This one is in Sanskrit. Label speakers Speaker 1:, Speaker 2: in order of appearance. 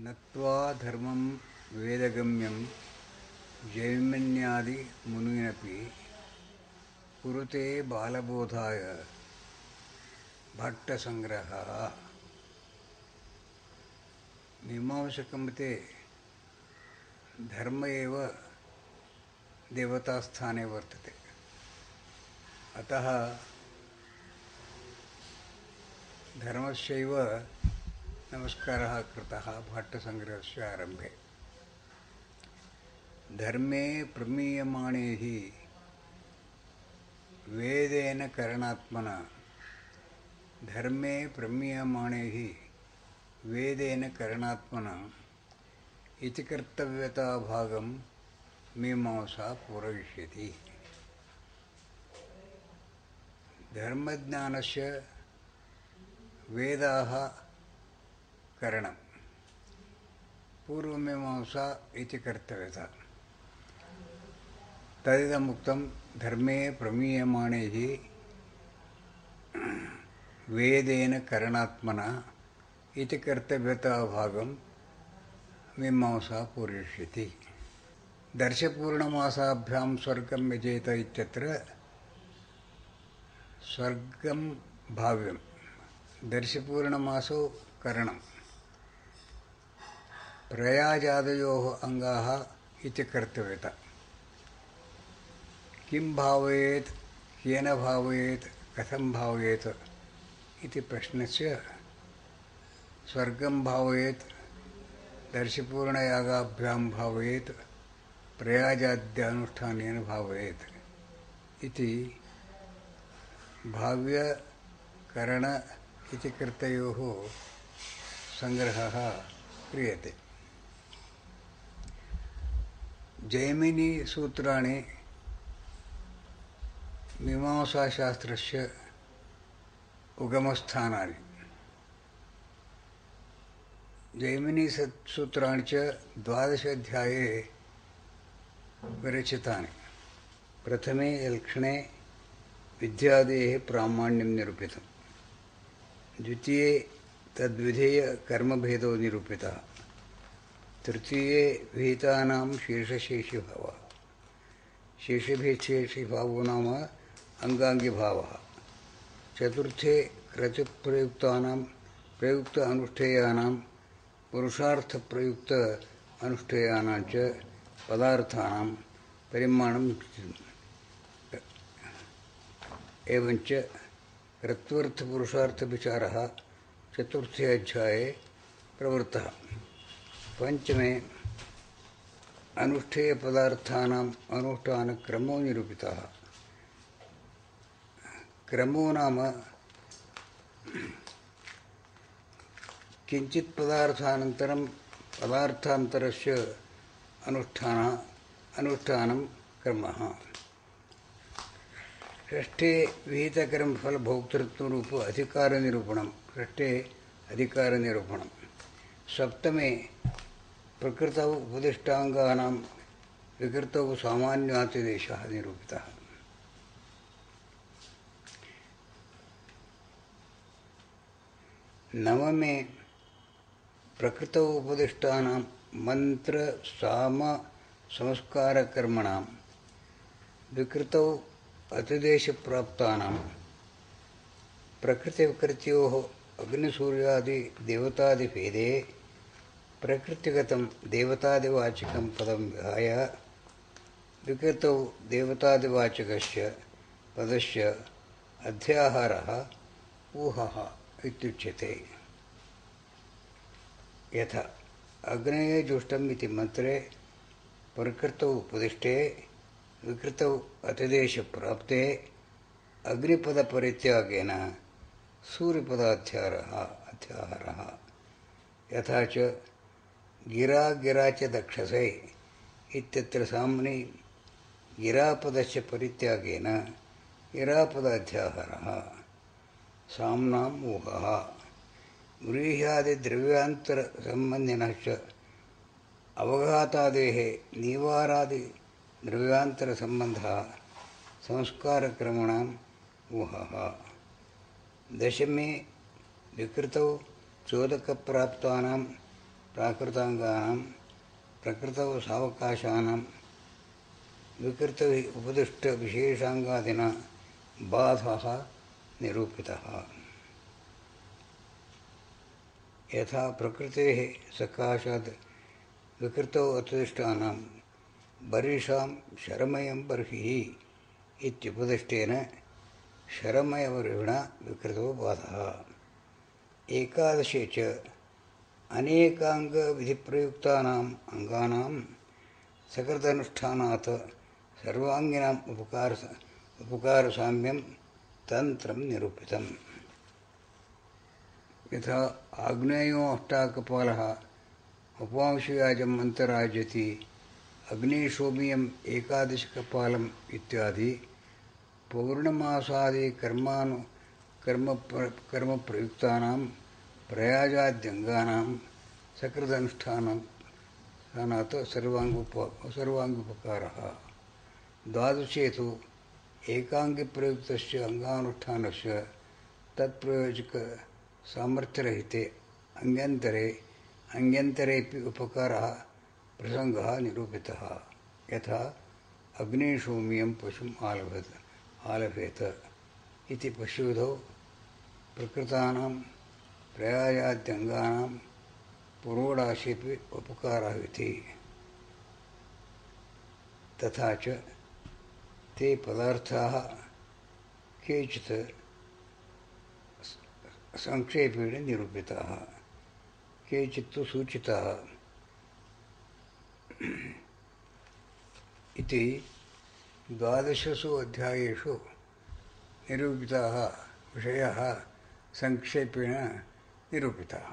Speaker 1: नत्वा धर्मं वेदगम्यं जैमिन्यादि मुनिरपि कुरुते बालबोधाय भट्टसंग्रहः। मीमांसकमते धर्म एव देवतास्थाने वर्तते। अतः धर्मस्यैव नमस्कारः कृतः भट्टसंग्रहस्य आरम्भे। धर्मे प्रमीयमाणे हि वेदेन करणात्मना धर्मे प्रमीयमाणे हि वेदेन करणात्मना इति कर्तव्यताभागं मीमांसा पूरयिष्यति। धर्मज्ञानस्य वेदाः करणं पूर्वमीमांसा इति कर्तव्यता। तदिदमुक्तं धर्मे प्रमीयमाणे हि वेदेन करणात्मना इति कर्तव्यताभागं मीमांसा पूरयिष्यति। दर्शपूर्णमासाभ्यां स्वर्गं यजेत इत्यत्र स्वर्गं भाव्यं। दर्शपूर्णमासो करणं। प्रयाजादयोः अङ्गाः इति कर्तव्यता। किं भावयेत्, केन भावयेत्, कथं भावयेत् इति प्रश्नस्य स्वर्गं भावयेत्, दर्शपूर्णयागाभ्यां भावयेत्, प्रयाजाद्यानुष्ठानेन भावयेत् इति भाव्य करण इति कर्तयोः संग्रहः क्रियते। जैमिनी सूत्राणि मीमांसाशास्त्रस्य उगमस्थानानि। जैमिनी सूत्राणि च 12 अध्याये विरचितानि। प्रथमे लक्षणे विद्यादेः प्रामाण्यं निरूपितम्। द्वितीये तद्विधेय कर्मभेदो निरूपितः। तृतीये विहितानां शेषशेषिभावः। शेषभेदशेषिभावो नाम अंगांगिभावः। चतुर्थे क्रतुप्रयुक्तानां प्रयुक्त अनुष्ठेयानां पुरुषार्थ प्रयुक्त अनुष्ठेयानां च पदार्थानां परिमाणं एवञ्च कृत्वर्थपुरुषार्थविचारः चतुर्थे अध्याये प्रवृत्तः। पंचमे अनुष्ठेयपदार्थानाम् अनुष्ठानक्रमो निरूपितः। क्रमो नाम किञ्चित् पदार्थानन्तरं पदार्थान्तरस्य अनुष्ठानं क्रमः। षष्ठे विहितकर्मफलभोक्तृत्वरूप अधिकारनिरूपणं। षष्ठे अधिकारनिरूपणं। सप्तमे प्रकृतौ उपदिष्टाङ्गानां विकृतौ सामान्यातिदेशः निरूपितः। नवमे प्रकृतौ उपदिष्टानां मंत्र साम संस्कारकर्मणां विकृतौ अतिदेशप्राप्तानां प्रकृतिविकृत्योः अग्निसूर्यादि देवतादिभेदे प्रकृतिगतं देवतादिवाचकं पदं विहाय विकृतौ देवतादिवाचकस्य पदस्य अध्याहारः ऊहः इत्युच्यते। यथा अग्नये जुष्टम् इति मंत्रे प्रकृतौ उपदिष्टे विकृतौ अतिदेशप्राप्ते अग्निपदपरित्यागेन सूर्यपदाध्याहारः। यथा च गिरा गिरा च दक्षसे इत्यत्र साम्नि गिरापदस्य परित्यागेन गिरापदाध्याहारः। साम्नाम् ऊहः। व्रीह्यादिद्रव्यान्तरसम्बन्धिनः च अवघातादेः निवारादिद्रव्यान्तरसम्बन्धः संस्कारक्रमणाम् ऊहः। दशमे विकृतौ चोदकप्राप्तानां प्राकृताङ्गानां प्रकृतौ सावकाशानां विकृतैः उपदिष्टविशेषाङ्गादिना बाधः निरूपितः। यथा प्रकृतेः सकाशात् विकृतौ उपदिष्टानां बर्हिषां शरमयं बर्हिः इत्युपदिष्टेन शरमयबर्हिणा विकृतो बाधः। एकादशे च अनेकाङ्गविधिप्रयुक्तानाम् अङ्गानां सकृदनुष्ठानात् सर्वाङ्गिनाम् उपकारसाम्यं तन्त्रं निरूपितम्। यथा आग्नेयो अष्टाकपालः उपांशुयाजम् अन्तराजति अग्निशोमियम् एकादशकपालम् इत्यादि पौर्णमासादि कर्मप्रयुक्तानां प्रयाजाद्यङ्गानां सकृदनुष्ठानात् सर्वाङ्गोपकारः। द्वादशे तु एकाङ्गिप्रयुक्तस्य अङ्गानुष्ठानस्य तत्प्रयोजकसामर्थ्यरहिते अन्यन्तरेऽपि उपकारः प्रसङ्गः निरूपितः। यथा अग्निशोमियं पशुम् आलभेत इति पशुविधौ प्रकृतानां प्रयायाद्यङ्गानां पुरोडाशेऽपि उपकारः इति। तथा च ते पदार्थाः केचित् संक्षेपेण निरूपिताः, केचित्तु सूचिताः इति 12 अध्यायेषु निरूपिताः विषयाः संक्षेपेण निरूपिताः।